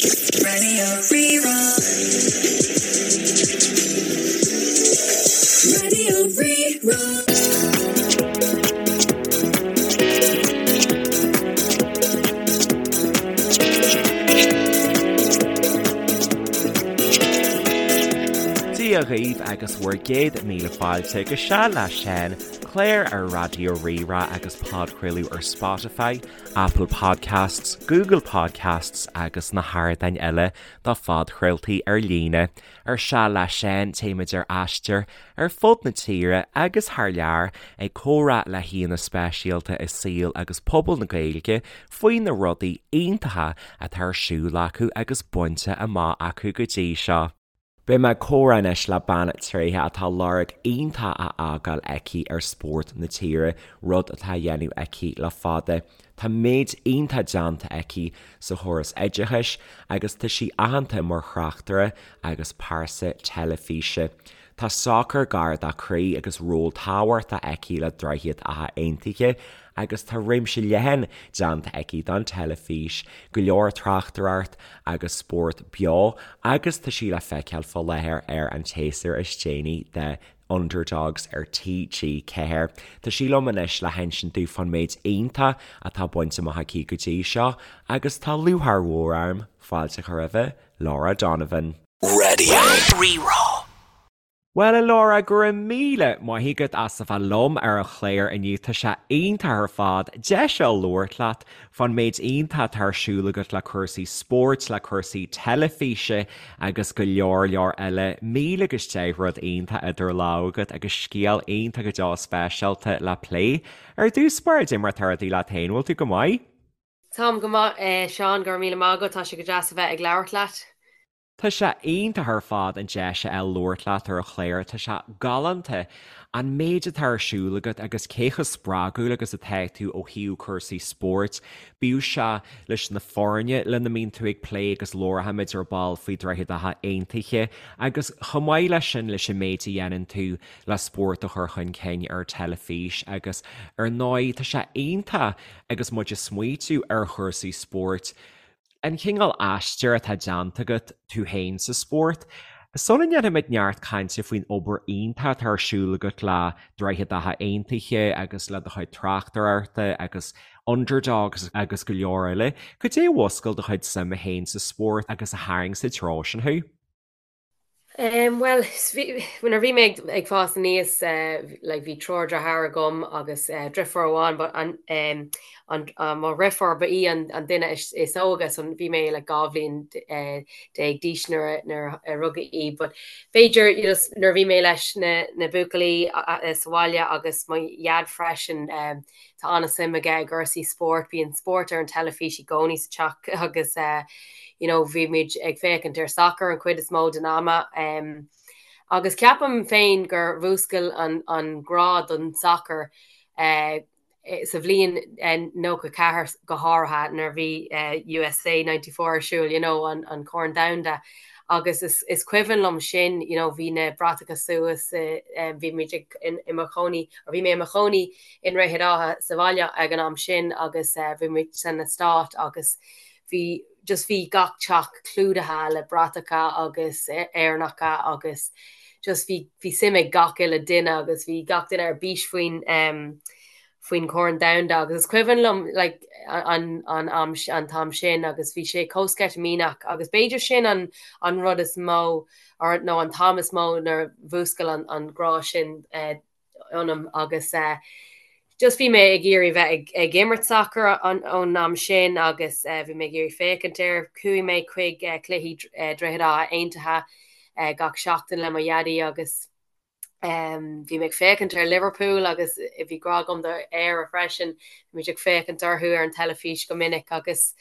Radio Rí-Rá. Radio Rí-Rá. Dia dhaoibh agus bhur gcéad míle fáilte go Seal le Seán, clár ar Raidió Rí-Rá agus podchraoladh ar Spotify, Apple Podcasts, Google Podcasts agus na hardáin eile do phodchraoltaí ar líne. Ar Seal le Seán, téimid ar aistear ar fud na tíre agus thar lear ag comhrá le haíonna speisialta i saol agus pobal na Gaeilge faoi na rudaí iontacha atá ar siúl acu agus bainte amach acu go dtí seo. Beidh mé ag comhrá anois le bean tréitheach atá lorg iontach á fhágáil aici ar spórt na tíre, rud atá á dhéanamh aici le fada. Tá méid iontach déanta aici sa chóras oideachais agus tá sí aitheanta mar thráchtaire agus pearsa teilifíse. Tá sacar gar dá croí agus ról tábhachtach aici le Droichead Átha Aontaithe agus tá réimse leathan déanta aici don teilifís, go leor tráchtaireacht agus spórt beo agus tá sí le feiceáil fá láthair ar an tséasúr is déanaí de Underdogs ar TG4. Tá sí liom anois le hinsint dúinn fán méid iontach atá bainte amach aici go dtí seo agus tá lúcháir mhór orm fáilte a chur roimhe, Laura Donovan. Radio Rí-Rá. Bhuel, a Laura, go raibh míle maith agat as a bheith liom ar an chlár inniu. Tá sé iontach ar fad deis a labhairt leat fán méid iontach atá ar siúl agat le cúrsaí spóirt, le cúrsaí teilifíse agus go leor leor eile. 1000 agus 10 rud iontach idir lámha agat agus scéal iontach go deo speisialta le plé. Ar dtús báire, cad é mar atá rudaí leat féin, bhfuil tú go maith? Táim go maith, a Sheáin, go raibh míle maith agat, tá sé go deas a bheith ag labhairt leat. Tá sé iontach ar fad an deis a fháil labhairt leat ar an chlár, tá sé galánta an méid atá ar siúl agat agus cé chomh spreagúil agus atá tú ó thaobh cúrsaí spóirt, bíodh sé leis na foirne lena mbíonn tú ag plé agus labharfaimid ar ball faoi Droichead Átha Aontaithe agus chomh maith leis sin leis an méid a dhéanann tú le spórt a chur chun cinn ar teilifís agus ar ndóigh tá sé iontach agus muid ag smaoitiú ar chúrsaí spóirt An cineál aistir atá déanta agat tú féin sa spórt. Sula ndéanfaimid neart cainte faoin obair iontach atá ar siúl agat le Droichead Átha Aontaithe agus le do chuid tráchtaireachta agus Underdogs agus go leor eile, cad é a mhúscail do chuid suime féin sa spórt agus a tharraing sa treo sin thú? Bhuel, nuair a bhí mé ag fás aníos, like bhí triúr deartháir agam agus driofúr amháin, but an, an, mo dhriofúr ba í an duine is óige, so bhí mé like 12 bhliain d'aois nuair nuair a rugadh í. But b'fhéidir, you know, nuair a bhí mé leis na na buachaillí sa bhaile agus mo dhaid freisin, Tá an-suim aige i gcúrsaí spóirt, bíonn spórt ar an teilifís i gcónaí sa teach agus you know bhí muid ag féachaint ar sacar an chuid is mó den ama. Agus ceapaim féin gur mhúscail an an grá don sacar sa bhliain 94 go háirithe nuair a bhí USA 94 ar siúl, you know an an Corn Domhanda. Agus is is cuimhin liom sin, you know bhí na bratacha suas, bhí muid ag i mo chónaí, or bhí mé i mo chónaí i nDroichead Átha sa bhaile ag an am sin agus bhí muid san eastát agus bhí just bhí gach teach clúdaithe le bratacha agus Éireannacha agus just bhí bhí suim ag gach uile duine agus bhí gach duine ar bís faoin faoin Chorn Domhanda agus is cuimhin liom like an an am an t-am sin agus bhí sé chomh sceitimíneach agus b'fhéidir sin an an rud is mó or nó an t-am is mó nuair a mhúscail an an grá sin ionam agus just bhí mé ag iarraidh bheith ag imirt sacair ón am sin agus bhí mé ag iarraidh féachaint air. Chuaigh mé chuig cluichí Droichead Átha Aontaithe gach seachtain le mo dhaidí agus bhí mé ag féachaint ar Liverpool agus bhí grá agam do Éire freisin. Bhí muid ag féachaint orthu ar an teilifís go minic agus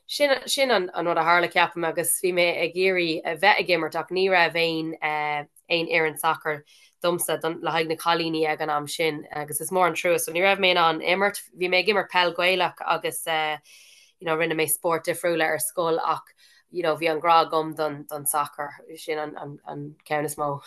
sin sin an rud a tharla ceapaim agus bhí mé ag iarraidh a bheith ag imirt ach ní raibh aon aon fhoireann sacair domsa le haghaidh na cailíní ag an am sin agus is mór an trua. So ní raibh mé in ann imirt. Bhí mé ag imirt peil Gaelach agus you know rinne mé spóirt difriúla ar scoil ach you know bhí an grá agam don don sacar. Sin an an an ceann is mó.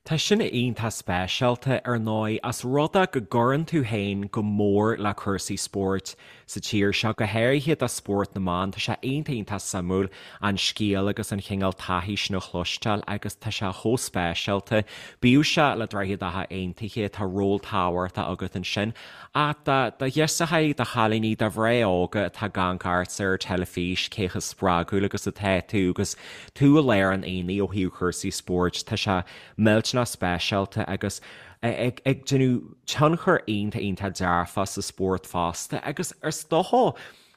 Tá sin iontach speisialta, ar ndóigh, as rud é go gcuireann tú féin go mór le cúrsaí spóirt. sa tír seo, go háirithe do spórt na mban. Tá sé iontach iontach suimiúil an scéal agus an chineál taithí sin a chloisteáil agus tá sé chomh speisialta. Bíodh sé le Droichead Átha Aontaithe, tá ról tábhachtach agat ansin. Ach do do ghirseachaí, do chailíní, do mhná óga atá ag amharc ortsa ar teilifís, cé chomh spreagúil agus atá tú agus tú i lár an aonaigh ó thaobh chúrsaí spóirt, tá sé millteanach speisialta agus ag déanamh tionchar iontach iontach dearfach sa spórt fosta agus is dócha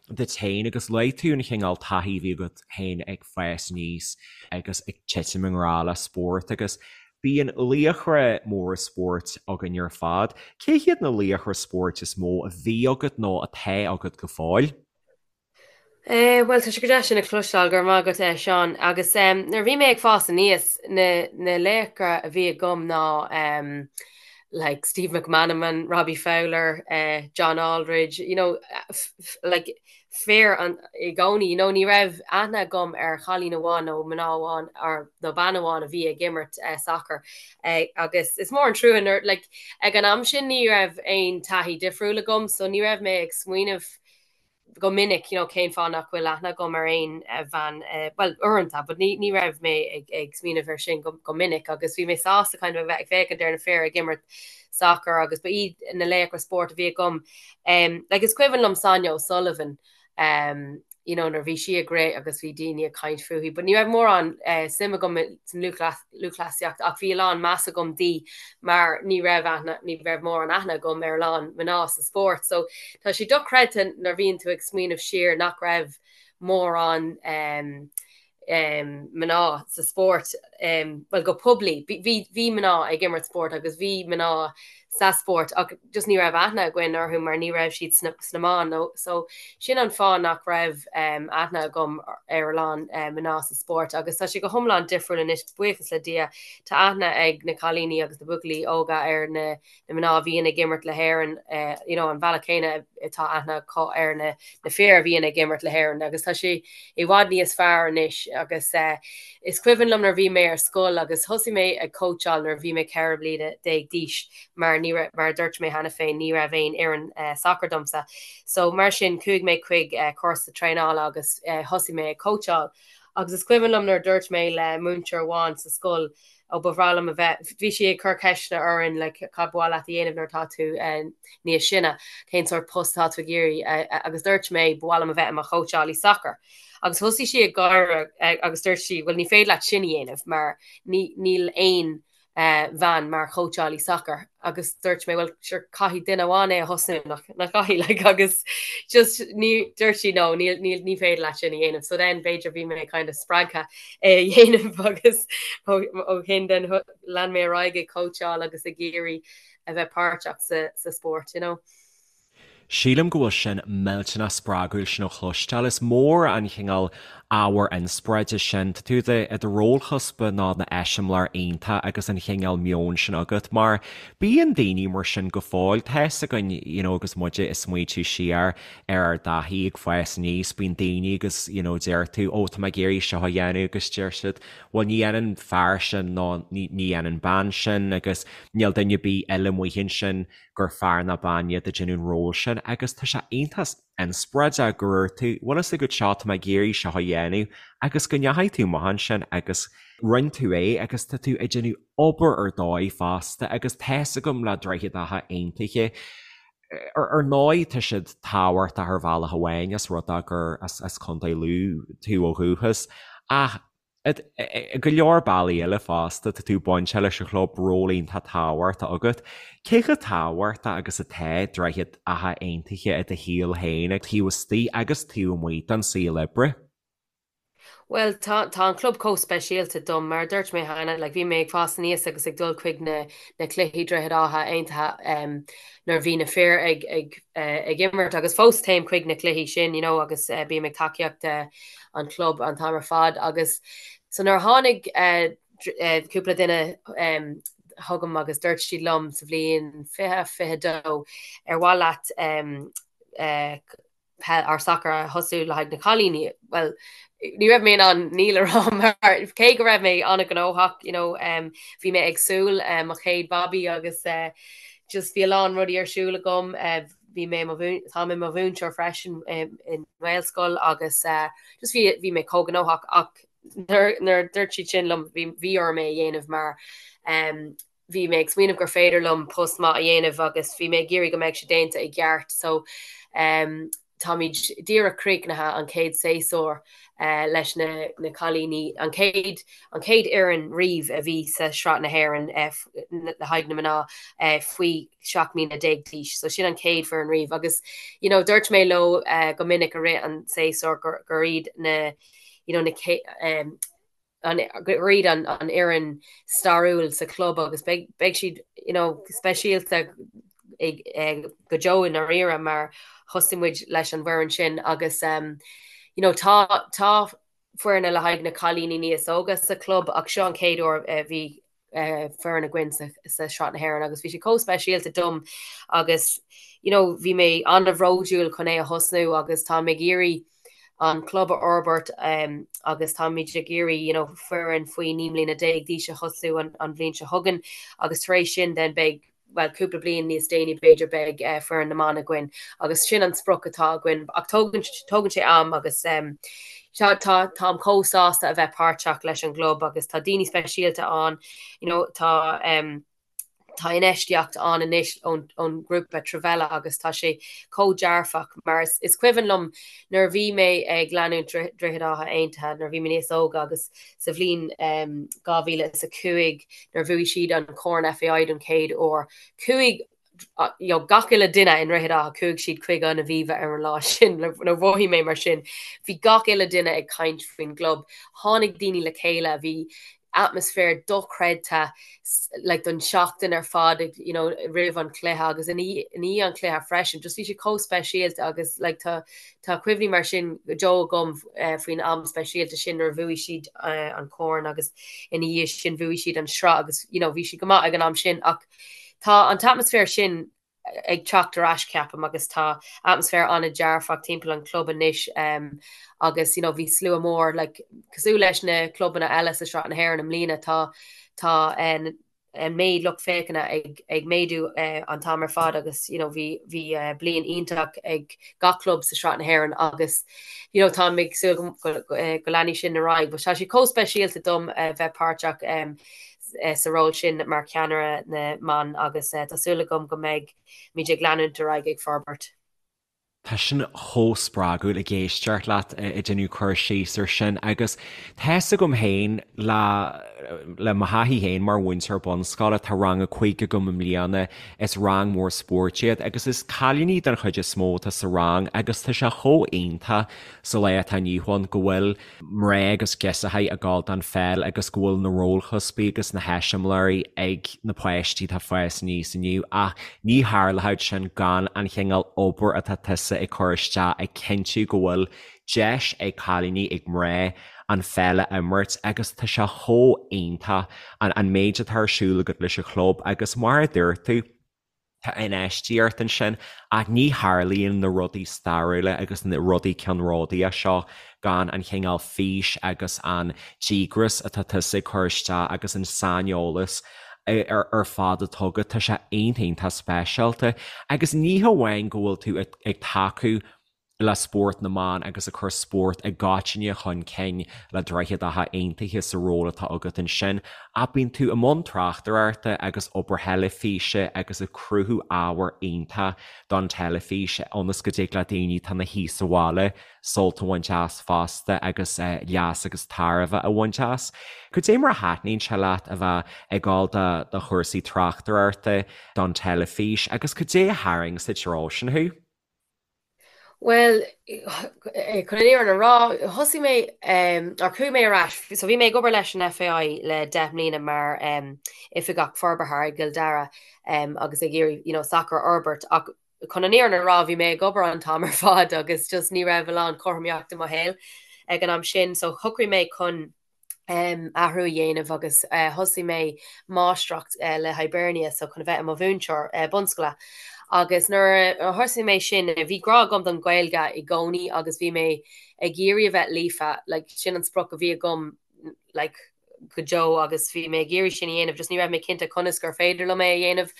duit féin agus luaigh tú an chineál taithí a bhí agat féin ag fás aníos agus ag titim i ngrá le spórt agus bíonn laochra móra spóirt againn ar fad. Cé hiad na laochra spóirt is mó a bhí agat nó atá agat go fóill? Eh, bhuel, tá sé go deas sin a chloisteáil, go raibh maith agat, eh, Seán. Agus em, nuair a bhí mé ag fás aníos, na, na laochra a bhí agam ná em, like Steve McManaman, Robbie Fowler, eh, John Aldridge, you know, like fir an, i gcónaí, you know, ní raibh aithne agam ar chailín amháin nó mná amháin or, nó bean amháin a bhí ag imirt eh, sacar. Eh, agus is mór an trua nuair, like, ag an am sin ní raibh aon taithí difriúil agam, so ní raibh mé ag smaoineamh go minic, you know, cén fáth nach bhfuil aithne agam ar aon bhean, bhuel, uaireanta, but ní, ní raibh mé ag, ag smaoineamh ar sin go, go minic agus bhí mé sásta kind of a bheith ag féachaint ar na fir ag imirt sacar agus ba iad na laochra spóirt a bhí agam. Um, like, is cuimhin liom Sonia O'Sullivan, um, you know, nuair bhí sí ag rith agus bhí daoine ag caint fúithi, but ní raibh mórán uh, suim agam san lúthchleasaíocht ach bhí a lán meas agam di mar ní raibh aithne, ní raibh mórán aithne agam ar a lán mná sa spórt. So tá sé dochreidte nuair a bhíonn tú ag smaoineamh siar nach raibh mórán um, um, mná sa spórt, um, well go poiblí. Bhí, bhí mná ag imirt spórt agus bhí mná sa spórt ach just ní raibh aithne againn orthu mar ní raibh siad sna, sna meáin nó so sin an fáth nach raibh um, aithne agam ar a lán um, mná sa spórt agus tá sé go hiomlán difriúil anois buíochas le Dia tá aithne ag na cailíní agus na buachaillí óga ar na na mná a bhíonn ag imirt le hÉirinn, you know, an bhealach céanna atá aithne acu ar na na fir a bhíonn ag imirt le hÉirinn agus tá sé i bhfad níos fearr anois agus is cuimhin liom nuair a bhí mé ar scoil agus thosaigh mé ag cóitseáil nuair a bhí mé 14 bliana d'aois mar ní raibh, mar a dúirt mé cheana féin, ní raibh aon fhoireann sacair domsa. So mar sin chuaigh mé chuig cúrsa traenála agus thosaigh mé ag cóitseáil agus is cuimhin liom nuair a dúirt mé le múinteoir amháin sa scoil ó ba bhreá liom a bheith, bhí sí ag cur ceisteanna orainn like cad ba mhaith leat a dhéanamh nuair atá tú níos sine, cén sórt post atá tú ag iarraidh agus dúirt mé ba mhaith liom a bheith i mo chóitseálaí sacair. Agus thosaigh sí ag gáire agus dúirt sí bhuel ní féidir leat sin a dhéanamh mar ní níl aon bhean mar chóitseálaí sacair agus dúirt mé bhuel sure caithfidh duine amháin é a thosnú nach nach caithfidh like agus just ní dúirt sí no níl níl ní féidir leat sin a dhéanamh so then b'fhéidir bhí mé kind of spreagtha é a dhéanamh agus ó shin then lean mé ar aghaidh ag cóitseáil agus ag iarraidh a bheith páirteach sa sa spórt you know. Sílim go bhfuil sin millteanach spreagúil sin a chloisteáil. Is mór an chineál ábhar inspioráide sin. Tá tú i do rólchuspa ná na eiseamláir iontach agus an chineál meoin sin agat mar bíonn daoine mar sin go fóill. Tá fhios againn you know agus muide ag smaoitiú siar ar ár dtaithí ag fás aníos, bíonn daoine agus you know deir tú ó tá mé ag iarraidh seo a dhéanamh agus deir siad bhuel ní dhéanann fear sin nó ní dhéanann bean sin agus níl duine ar bith eile amuigh ansin gur fear ná bean iad ag déanamh an ról sin agus tá sé iontach inspioráideach go raibh tú, bhfuil fhios agat seo, tá mé ag iarraidh seo a dhéanamh agus go ndeachaigh tú amach ansin agus rinne tú é agus tá tú ag déanamh obair ar dóigh fosta agus tá fhios agam le Droichead Átha Aontaithe ar ndóigh tá siad tábhachtach ar bhealach amháin as rud é gur as Contae Lú tú ó dhúchas ach I go leor bealaí eile fosta, tá tú bainte leis an chlub, ról iontach tábhachtach agat. Cé chomh tábhachtach agus atá Droichead Átha Aontaithe i do shaol féin, taobh istigh agus taobh amuigh den saol oibre? Bhuel, tá, tá an club chomh speisialta dom. Mar a dúirt mé cheana, like, bhí mé ag fás aníos agus ag dul chuig na, na cluichí Droichead Átha Aontaithe nuair a bhí na fir ag, ag, ag imirt agus fós téim chuig na cluichí sin, you know, agus bím ag tacaíocht an chlub an t-am ar fad agus so nuair a tháinig cúpla duine chugam agus dúirt siad liom sa bhliain 2022 ar mhaith leat peil or sacar a thosú le haghaidh na cailíní, bhuel ní raibh mé in ann níl a rá mar cé go raibh mé an-ghnóthach, you know, bhí mé ag súil mo chéad babaí agus just bhí a lán rudaí ar siúl agam. bhí mé mo tá mé mo mhúinteoir freisin i nGaelscoil agus just bhí bhí mé chomh gnóthach ach nuair nuair a dúirt siad sin liom bhí bhí orm é a dhéanamh mar bhí mé ag smaoineamh gur féidir liom post maith a dhéanamh agus bhí mé ag iarraidh go mbeadh sé déanta i gceart so táimid díreach críochnaithe an chéad séasúr leis na na cailíní, an chéad an chéad fhoireann riamh a bhí sa Sraith na hÉireann le haghaidh na mná faoi 17 mbliana d'aois. So sin an chéad foireann riamh agus you know dúirt mé leo go minic i rith an séasúr gur gur iad na you know na an gur iad an fhoireann stairiúil sa chlub agus beidh beidh siad you know speisialta ag go deo i ndáiríre mar thosaigh muid leis an bhfoireann sin agus um you know tá tá foirne le haghaidh na cailíní níos óga sa chlub ach seo an chéad uair a bhí foireann againn sa Sraith na hÉireann agus bhí sé chomh speisialta dom agus you know bhí mé an-bhródúil chun é a thosnú agus táim ag iarraidh an club a fhorbairt agus táimid ag iarraidh you know foireann faoi 19 mbliana d'aois a thosú an an bhliain seo chugainn agus tar éis sin then beidh bhuel, cúpla bliain níos déanaí b'fhéidir beidh foireann na mban againn agus sin an sprioc atá againn ach tógann tógann sé am agus tá tá táim chomh sásta a bheith páirteach leis an gclub agus tá daoine speisialta ann you know tá tá infheistíocht ann anois ón ón ngrúpa Trevella agus tá sé chomh dearfach mar is is cuimhin liom nuair a bhí mé ag leanúint Droichead Átha Aontaithe nuair a bhí mé níos óga agus sa bhliain 2005 nuair a bhuaigh siad an Corn FAI don chéad uair. Chuaigh you know, gach uile duine i nDroichead Átha, chuaigh siad chuig an Aviva ar an lá sin, nó mhothaigh mé mar sin. Bhí gach uile duine ag caint faoin gclub. Tháinig daoine le chéile, bhí atmaisféar dochreidte like, don seachtain ar fad you know, roimh an chluiche agus i ndiaidh an chluiche freisin. Just bhí sé chomh speisialta agus like, tá Tá cuimhní mar sin go deo agam faoin am speisialta sin nuair a bhuaigh siad an corn agus ina dhiaidh sin bhuaigh siad an sraith agus you know bhí siad go maith ag an am sin ach tá an t-atmaisféar sin ag teacht ar ais ceapaim agus tá atmaisféar an-dearfach timpeall an chlub anois agus you know bhí slua mór like cosúil leis na clubanna eile sa Sraith na hÉireann i mbliana tá tá an méid lucht féachana ag méadú an t-am ar fad agus you know bhí bhí bliain iontach ag gach club sa Sraith na hÉireann agus you know táim ag súil go go leanfaidh sin ar aghaidh. But tá sé chomh speisialta dom a bheith páirteach sa ról sin mar cheannaire na mban agus tá súil agam go mbeidh muid ag leanúint ar aghaidh ag forbairt. Tá sin chomh spreagúil ag éisteacht leat ag déanamh cur síos ar sin agus tá fhios agam féin le le mo thaithí féin mar mhúinteoir bunscoile, tá rang a 5 agam i mbliana, is rang mór spóirt iad agus is cailíní den chuid is mó atá sa rang agus tá sé chomh iontach sa lá atá inniu ann go bhfuil mná agus girseachaí ag gabháil don pheil agus go bhfuil na rólchuspaí agus na heiseamláirí ag na páistí atá ag fás aníos inniu ach ní tharlódh sin gan an chineál obair atá tusa ag cur isteach ag cinntiú go bhfuil deis ag cailíní, ag mná an pheil a imirt agus tá sé chomh iontach an méid atá ar siúl agat leis an chlub agus mar a dúirt tú, Tá infheistíocht ansin ach ní tharlaíonn na rudaí stairiúla agus na rudaí ceannródaíocha seo gan an chineál fís agus an díograis atá tusa ag cur isteach agus an saineolas ar fad atá agat. Tá sé iontach iontach speisialta. Agus ní hamháin go bhfuil tú ag tacú le spórt na mban agus ag cur spórt i gcoitinne chun cinn le Droichead Átha Aontaithe sa ról atá agat ansin, ach bíonn tú i mbun tráchtaireachta agus obair theilifíse agus ag cruthú ábhar iontach don teilifís ionas go dtig le daoine atá ina shuí sa bhaile sult a bhaint as fosta agus leas agus tairbhe a bhaint as. Cad é mar a thaitníonn sé leat a bheith ag gabháil do chúrsaí tráchtaireachta don teilifís agus cad é a tharraing sa treo sin thú? Bhuel, chun an fhírinne a rá, thosaigh mé, or chuaigh mé ar ais, so bhí mé ag obair leis an FAI le 10 mbliana mar oifigeach forbartha i gCill Dara agus ag iarraidh, you know, sacar a fhorbairt ach chun an fhírinne a rá, bhí mé ag obair an t-am ar fad agus just ní raibh a lán cothromaíochta i mo shaol ag an am sin, so shocraigh mé chun athrú a dhéanamh agus thosaigh mé máistreacht le Hibernia so chun a bheith i mo mhúinteoir bunscoile. Agus nuair a thosaigh mé sin, bhí grá agam don Ghaeilge i gcónaí agus bhí mé ag iarraidh a bheith líofa, like sin an sprioc a bhí agam like. go deo agus bhí mé ag iarraidh sin a dhéanamh, just ní raibh mé cinnte conas gur féidir liom é a dhéanamh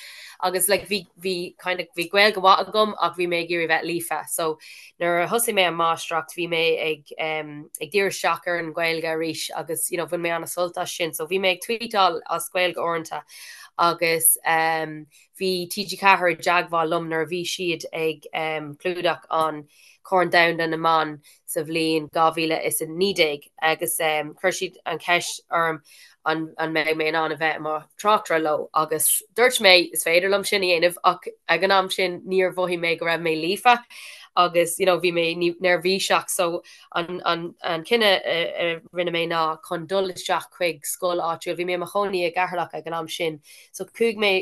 agus like bhí bhí kind of bhí Gaeilge mhaith agam ach bhí mé ag iarraidh bheith líofa. So nuair a thosaigh mé an máistreacht bhí mé ag um, ag díriú isteach ar an Ghaeilge arís agus you know, bhain mé an-sult as sin. So bhí mé ag tweetáil as Gaeilge uaireanta agus um, bhí TG4 i dteagmháil liom nuair a bhí siad ag um, clúdach an Corn Domhanda na mBan sa bhliain 2019 agus chuir siad an cheist orm an an mbeidh mé in ann a bheith i mo thráchtaire leo agus dúirt mé is féidir liom sin a dhéanamh ach ag an am sin níor mhothaigh mé go raibh mé líofa agus you know bhí mé neirbhíseach so an an an cinneadh a rinne mé ná chun dul isteach chuig scoil áitiúil. Bhí mé i mo chónaí i gCeatharlach ag an am sin so chuaigh mé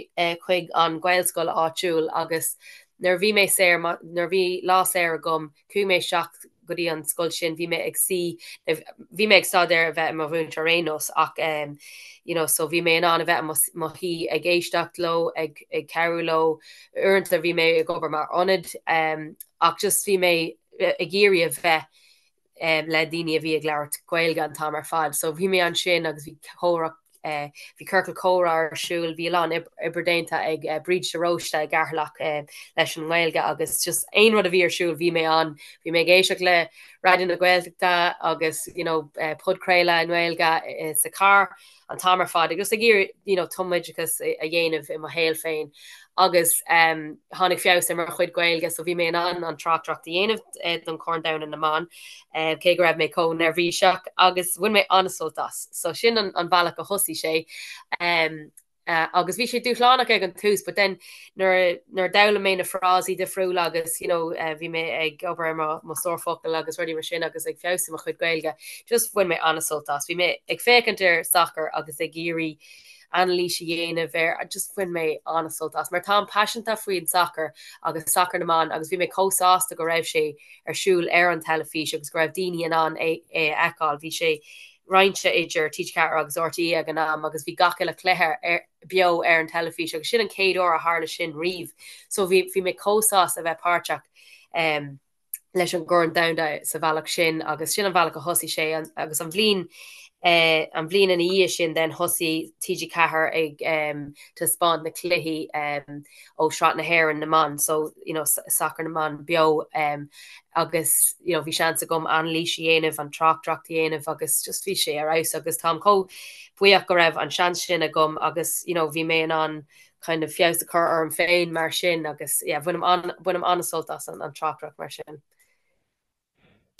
chuig an Ghaelscoil áitiúil agus Nuair a bhí mé saor, nuair a bhí lá saor agam, chuaigh mé isteach go dtí an scoil sin, bhí mé ag suí, bhí mé ag staidéar a bheith i mo mhúinteoir ar aon nós ach ehm you know so bhí mé in ann a bheith i mo mo shuí ag éisteacht leo, ag ag cabhrú leo, uaireanta bhí mé ag obair mar ionad ehm ach just bhí mé ag iarraidh a bheith le daoine a bhí ag labhairt Gaeilge an t-am ar fad. So bhí mé ansin agus bhí comhrá, bhí ciorcal comhrá ar siúl, bhí a lán oibre déanta ag Bríd de Róiste i gCeatharlach leis an nGaeilge agus just aon rud a bhí ar siúl bhí mé ann. Bhí mé ag éisteacht le Raidió na Gaeltachta agus you know podchraoladh i nGaeilge sa charr. an t-am ar fad agus ag iarraidh you know tumoideachas a dhéanamh i mo shaol féin agus um, tháinig feabhas ar mo chuid Gaeilge so bhí mé in ann an tráchtaireacht a dhéanamh eh, don Chorn Domhanda na mBan eh, cé go raibh mé chomh neirbhíseach agus bhain mé an-sult as. So sin an, an bealach a thosaigh sé. Um, uh, agus bhí sé dúshlánach ag an tús, but then nuair nuair a d'fhoghlaim mé na frásaí difriúla agus you know eh, bhí mé ag obair ar mo mo stór focal agus rudaí mar sin agus ag feabhsú mo chuid Gaeilge, just bhain mé an-sult as. Bhí mé ag féachaint ar sacar agus ag iarraidh anailís a dhéanamh air, just bhain mé an-sult as. Mar táim paiseanta faoin sacar agus sacar na mban agus bhí mé chomh sásta go raibh sé ar siúl ar an teilifís agus go raibh daoine in ann é é a fheiceáil. Bhí sé roinnte idir TG4 agus RTÉ ag an am agus bhí gach uile chluiche ar beo ar an teilifís agus sin an chéad uair a tharla sin riamh. So bhí bhí mé chomh sásta a bheith páirteach um, leis an gCorn Domhanda sa bhealach sin agus sin an bhealach a thosaigh sé an, agus an bhliain eh, an bhliain ina dhiaidh sin then thosaigh TG4 ag um, taispeáint na cluichí um, ó Shraith na hÉireann na mban so you know, sacar na mban beo um, agus you know, bhí seans agam anailís a dhéanamh, an tráchtaireacht a dhéanamh agus just bhí sé ar fheabhas agus táim chomh buíoch go raibh an seans sin agam agus you know, bhí mé in ann kind of feabhas a chur orm féin mar sin agus yeah, bhainim an, bainim an-sult as an, an tráchtaireacht mar sin.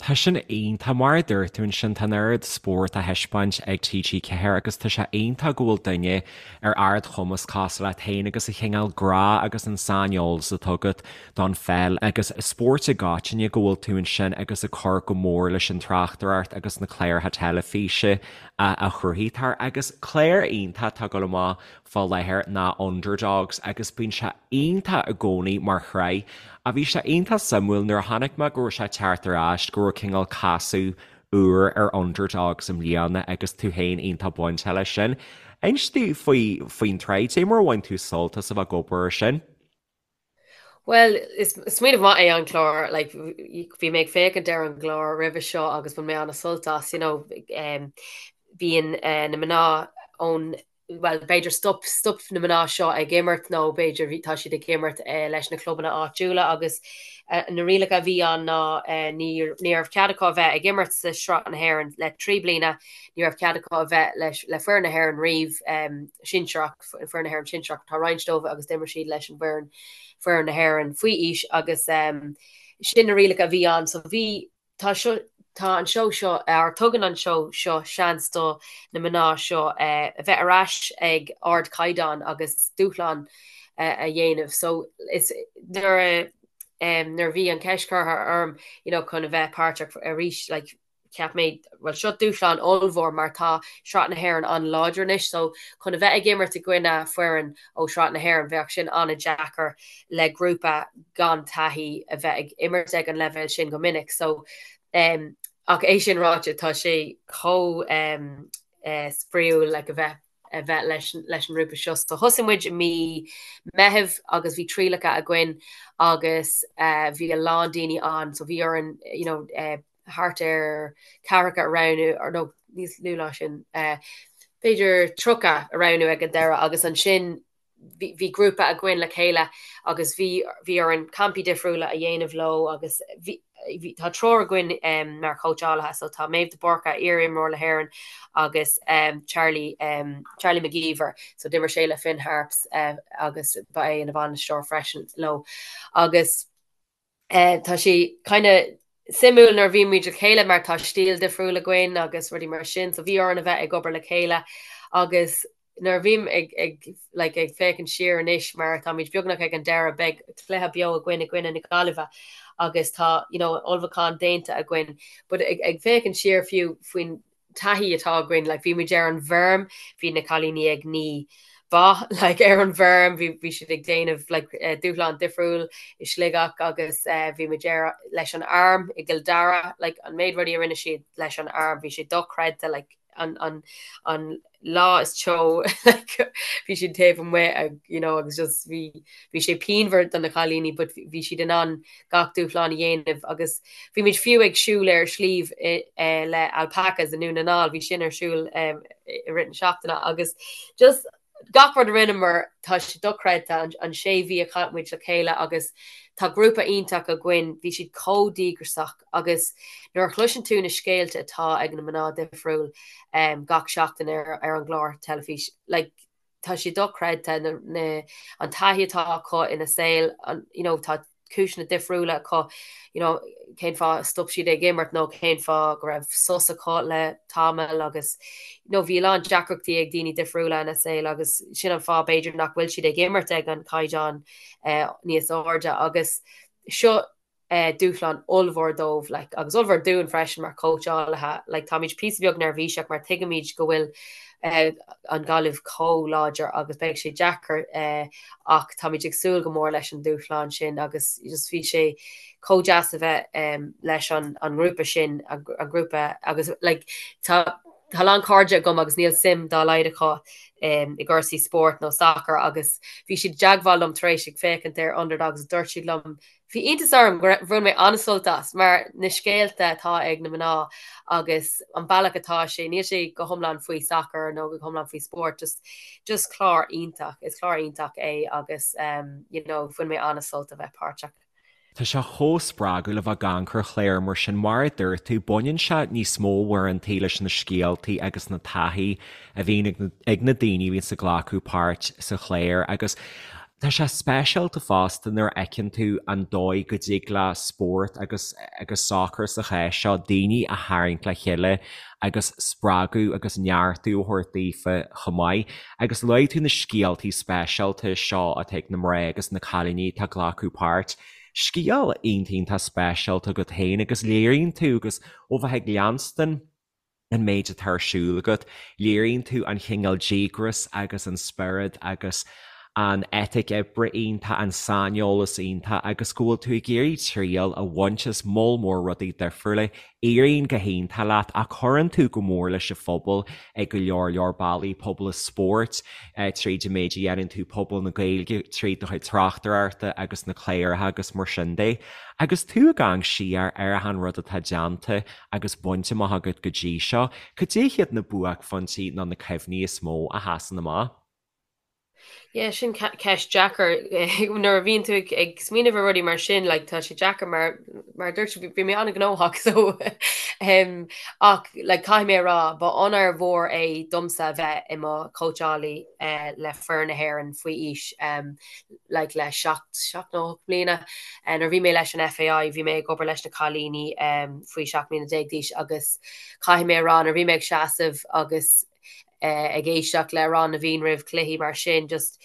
Tá sin iontach, mar a dúirt tú ansin, tá an oiread spórt á thaispeáint ag TG4 agus tá sé iontach go bhfuil duine ar ardchumas cosúil leat féin agus an cineál grá agus an saineolas atá agat don pheil agus spórt i gcoitinne go bhfuil tú ansin agus ag cur go mór leis an tráchtaireacht agus na cláracha teilifíse a chruthaítear. Agus clár iontach atá ag dul amach fá láthair ná Underdogs agus bíonn sé iontach i gcónaí mar shraith. Ach bhí sé iontach suimiúil nuair a chonaic mé go raibh sé ag teacht ar ais go raibh cineál casadh úr ar Underdogs i mbliana agus tú féin iontach bainteach leis sin. Inis domh faoi faoin tsraith, cad é mar a bhain tú sult as a bheith ag obair ar sin? Bhuel, is smaoineamh maith é an clár, like, bhí mé ag féachaint ar an gclár roimhe seo agus bhain mé an-sult as, you know, um, bíonn uh, na mná ón bhuel, b'fhéidir stop, stop na mná seo ag imirt nó b'fhéidir bhí, tá siad ag imirt uh, leis na clubanna áitiúla agus uh, na rialacha a bhí ann ná uh, ní, ní raibh cead acu a bheith ag imirt sa Sraith na hÉireann le 3 bliana, ní raibh cead acu a bheith leis, le foireann na hÉireann riamh um, sinsearach, foireann na hÉireann sinsearach, tá roinnt dóibh agus d'imir siad leis an bhfoireann, foireann na hÉireann faoi aois agus sin na rialacha a bhí ann. So bhí, tá seo, tá an seó seo, or tugann an seó seo seans do na mná seo a bheith ar ais ag ardchaighdeán agus dúshlán a dhéanamh. So is nuair a, nuair a bhí an cheist curtha orm, you know, chun a bheith páirteach arís, like, cheap mé, bhuel seo dúshlán ollmhór mar tá Sraith na hÉireann an-láidir anois so chun a bheith ag imirt i gcoinne foireann ó Shraith na hÉireann bheadh sin an-deacair le grúpa gan taithí a bheith ag imirt ag an leibhéal sin go minic so um, ach é sin ráite tá sé chomh um, uh, spraíúil like, a bheith a bheith leis leis an ngrúpa seo. So thosaigh muid i mí Meitheamh agus bhí trialacha againn agus uh, bhí a lán daoine ann so bhí orainn you know, uh, thart ar ceathracha a roghnú, or no, níos lú ná sin. b'fhéidir 30 a roghnú ag an deireadh agus ansin bhí grúpa againn le chéile agus bhí bhí orainn campaí difriúla a dhéanamh leo agus bhí bhí tá triúr againn um, mar chóitseálaithe so tá Méabh de Búrca iar-imreoir le hÉirinn agus um, Charlie um, Charlie McGeever so d'imir sé le Finn Harps uh, agus ba é ina bhainisteoir freisin leo agus Tá sé kind of suimiúil nuair a bhíonn muid le chéile mar tá stíl difriúil againn agus rudaí mar sin, so bhí orainn a bheith ag obair le chéile agus nuair a bhím ag, ag, like, ag féachaint siar anois mar táimid beagnach ag an deireadh, beidh cluiche beo againn i gcoinne na Gaillimhe agus tá, you know, ullmhúchán déanta againn, but ag, ag féachaint siar fiú faoin taithí atá againn, like bhí muid ar an bhfeirm, bhí na cailíní ag ní ba like ar an bhfeirm, bhí bhí siad ag déanamh like eh, dúshlán difriúil i Sligeach agus eh, bhí muid ar leis an arm i gCill Dara, like an méid rudaí a rinne siad leis an arm, bhí sé dochreidte like an an an lá is teo like bhí siad taobh amuigh ag you know agus just bhí bhí sé pianmhar do na cailíní but bhí siad in ann gach dúshlán a dhéanamh agus bhí muid fiú ag siúl ar sliabh le alpacas i nDún na nGall, bhí sin ar siúl i rith na seachtaine agus just gach rud a rinneamar tá sé dochreidte an sé mhí a chaith muid le chéile agus tá grúpa iontach againn, bhí siad chomh díograiseach agus nuair a chloiseann tú na scéalta atá ag na mná difriúil gach seachtain ar an gclár teilifís like tá sé dochreidte na, na, an taithí atá acu ina saol, an, you know, tá cúiseanna difriúla acu, you know, cén fáth a stop siad ag imirt nó cén fáth go raibh sos acu le tamall agus, you know, bhí a lán deacrachtaí ag daoine difriúla ina saol agus sin an fáth b'fhéidir nach bhfuil siad ag imirt ag an caighdeán eh, níos airde agus seo dúshlán ollmhór dóibh like agus ollmhór dúinn freisin mar chóitseálaithe like táimid píosa beag neirbhíseach mar tuigimid go bhfuil an Ghaillimh chomh láidir agus beidh sé deacair ach táimid ag súil go mór leis an dúshlán sin agus just bhí sé chomh deas a bheith leis an an ngrúpa sin an grúpa agus like tá Tá a lán cairde agam agus níl suim dá laghad acu i gcúrsaí spóirt nó sacair agus bhí siad i dteagmháil liom tar éis ag féachaint ar Underdogs dúirt siad liom Bhí iontas orm go bhain mé an-sult as mar na scéalta atá ag na mná agus an bealach atá sé, níl sé go hiomlán faoi sacar nó go hiomlán faoi spórt, just just clár iontach, is clár iontach é agus um, you know, bhain mé an-sult a bheith páirteach. Tá sé chomh spreagúil a bheith ag amharc ar chláir mar sin, mar a dúirt tú, baineann sé níos mó uaireantaí leis na scéaltaí agus na taithí a bhíonn ag na daoine a bhíonns ag glacadh páirt sa chlár agus Tá sé speisialta fosta nuair a fheiceann tú an dóigh go dtig le spórt agus agus sacar sa chás seo daoine a tharraingt le chéile agus spreagadh agus neartú a thabhairt daofa chomh maith. Agus luaigh tú na scéaltaí speisialta seo atá ag na mná agus na cailíní atá ag glacadh páirt. Scéal iontach iontach speisialta agat féin agus léiríonn tú agus ó bheith ag leanstan an méid atá ar siúl agat, léiríonn tú an chineál díograis agus an spiorad agus an eitic oibre iontach, an saineolas iontach agus go bhfuil tú ag iarraidh triail a bhaint as moll mór rudaí difriúla. Éiríonn go hiontach leat ach cuireann tú go mór leis an phobal ag go leor leor bealaí, pobal an spóirt tríd an méid a dhéanann tú, pobal na Gaeilge tríd do chuid tráchtaireachta agus na cláracha agus mar sin de. Agus tú ag amharc siar ar achan rud atá déanta agus bainte amach agat go dtí seo, cad é hiad na buaicphointí nó na cuimhní is mó a sheasann amach? Yeah, sin ceist deacair. Nuair a bhíonn tú ag smaoineamh ar rudaí mar sin, like, tá sé deacair mar mar a dúirt bhí mé an-ghnóthach so um, ach like, caithfidh mé a rá ba onóir mhór é domsa a bheith i mo chóitseálaí uh, le foireann na hÉireann faoi aois um, like le 7 7 nó 8 mbliana. Nuair a bhí mé leis an FAI bhí mé ag obair leis na cailíní faoi 17 mbliana d'aois agus caithfidh mé a rá nuair a bhí mé ag seasamh agus ag éisteacht le Amhrán na bhFiann roimh chluichí mar sin just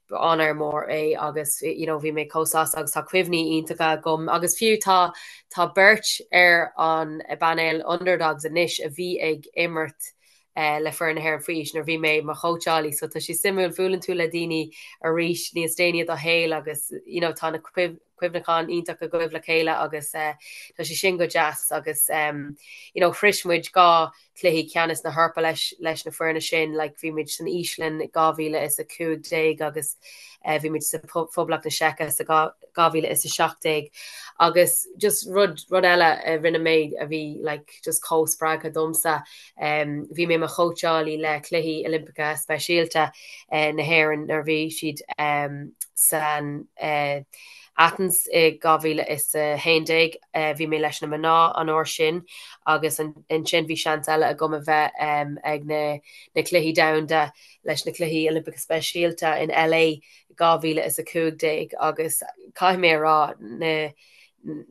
ba onóir mór é agus you know bhí mé chomh sásta agus tá cuimhní iontacha agam agus fiú tá tá beirt ar an bpainéal Underdogs anois a bhí ag imirt le foireann na hÉireann faoi aois nuair a bhí mé i mo chóitseálaí so tá sé suimiúil, buaileann tú le daoine arís níos déanaí i do shaol agus you know tá na. cuimhneachán iontach agaibh le chéile agus tá sé sin go deas agus you know shrois muid 2 cluichí ceannais na hEorpa leis leis na foirne sin, like bhí muid san Íoslainn 2015 agus bhí muid sa Phoblacht na Seice sa 2017 agus just rud rud eile a rinne mé a bhí like just chomh spreagtha domsa bhí mé i mo chóitseálaí le Cluichí Oilimpeacha Speisialta na hÉireann nuair a bhí siad san Athens i 2011. Bhí mé leis na mná an uair sin agus ansin bhí seans eile agam a bheith ag na na Cluichí Domhanda leis na Cluichí Oilimpeacha Speisialta in LA 2015 agus caithfidh mé a rá na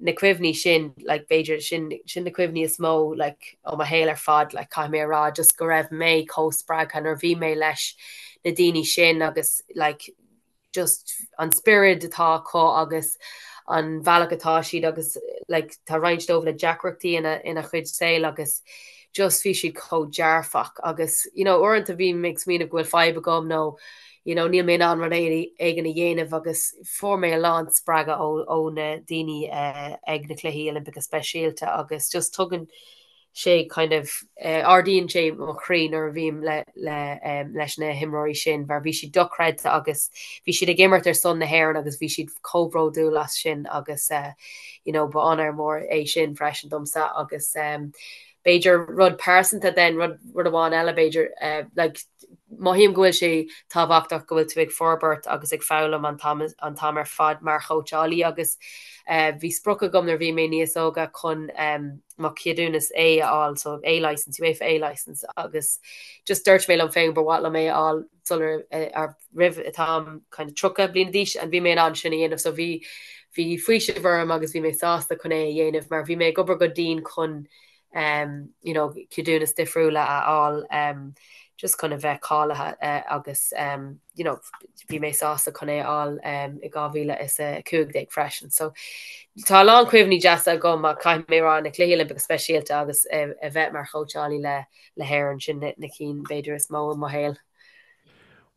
na cuimhní sin like b'fhéidir sin sin na cuimhní is mó like ó mo shaol ar fad like caithfidh mé a rá just go raibh mé chomh spreagtha nuair a bhí mé leis na daoine sin agus like just an spiorad atá acu agus an bhealach atá siad agus like tá roinnt dóibh le deacrachtaí ina ina chuid saoil agus just bhí siad chomh dearfach agus you know uaireanta bím ag smaoineamh go bhfuil fadhb agam nó you know níl mé in ann rud éigin a dhéanamh agus fuair mé a lán spreagadh ó ó na daoine uh, ag na Cluichí Oilimpeacha Speisialta agus just tugann sé kind of ardaíonn sé mo chroí nuair a bhím le le leis na himreoirí sin mar bhí siad dochreidte agus bhí siad ag imirt ar son na hÉireann agus bhí siad chomh bródúil as sin agus you know ba onóir mór é sin freisin domsa agus b'fhéidir rud pearsanta then rud rud amháin eile b'fhéidir like mothaím go bhfuil sé tábhachtach go bhfuil tú ag forbairt agus ag foghlaim an t-am an t-am ar fad mar chóitseálaí agus bhí sprioc agam nuair a bhí mé níos óga chun mo cheadúnas A a fháil, so A licence, UEFA A licence agus just dúirt mé liom féin gur mhaith liom é a fháil sular ar roimh an t-am kind of 30 bliana d'aois and bhí mé in ann sin a dhéanamh so bhí bhí faoiseamh orm agus bhí mé sásta chun é a dhéanamh mar bhí mé ag obair go dian chun um, you know, ceadúnas difriúla a fháil um, just chun a bheith cáilithe uh, agus um, you know, bhí mé sásta chun é a fháil um, i 2015 freisin. So tá a lán cuimhní deasa agam ach caithfidh mé rá na Cluichí Oilimpeacha Speisialta agus a, a bheith mar chóitseálaí le le hÉirinn sin na, na cinn b'fhéidir is mó i mo shaol.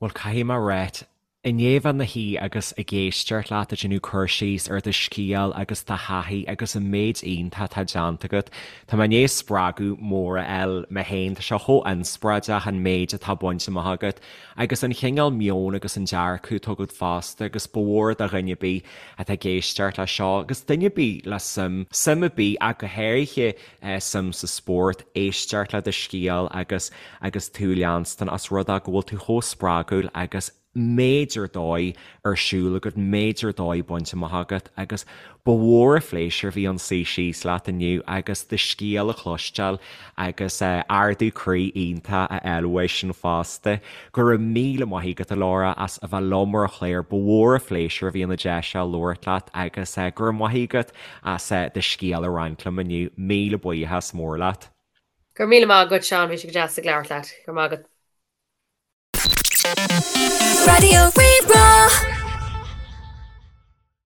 Bhuel caithfidh mé a ráit, i ndiaidh bheith i mo shuí agus ag éisteacht leat ag déanamh cur síos ar do scéal agus do thaithí agus an méid iontach atá déanta agat, tá mé i ndiaidh spreagadh mór a fháil mé féin. Tá sé chomh inspioráideach an méid atá bainte amach agat agus an chineál meoin agus an dearcadh atá agat fosta agus ba mhór do dhuine ar bith atá ag éisteacht leis seo agus duine ar bith le suim, suim ar bith ach go háirithe suim sa spórt, éisteacht le do scéal agus agus tú a leanstan as rud é go bhfuil tú chomh spreagúil agus méid ar dóigh ar siúl agat, méid ar dóigh bainte amach agat agus ba mhór an phléisiúr a bhí ann suí síos leat inniu agus do scéal a chloisteáil agus ardú croí iontach a fháil uaidh sin fosta. Go raibh míle maith agat a Laura as a bheith liom ar an chlár, ba mhór an phléisiúr a bhí ann an deis seo labhairt leat agus go raibh maith agat as do scéal a roinnt liom inniu. Míle buíochas mór leat. Go raibh míle maith agat Seán, bhí sé go deas ag labhairt leat. Go raibh maith agat. Raidió Rí-Rá.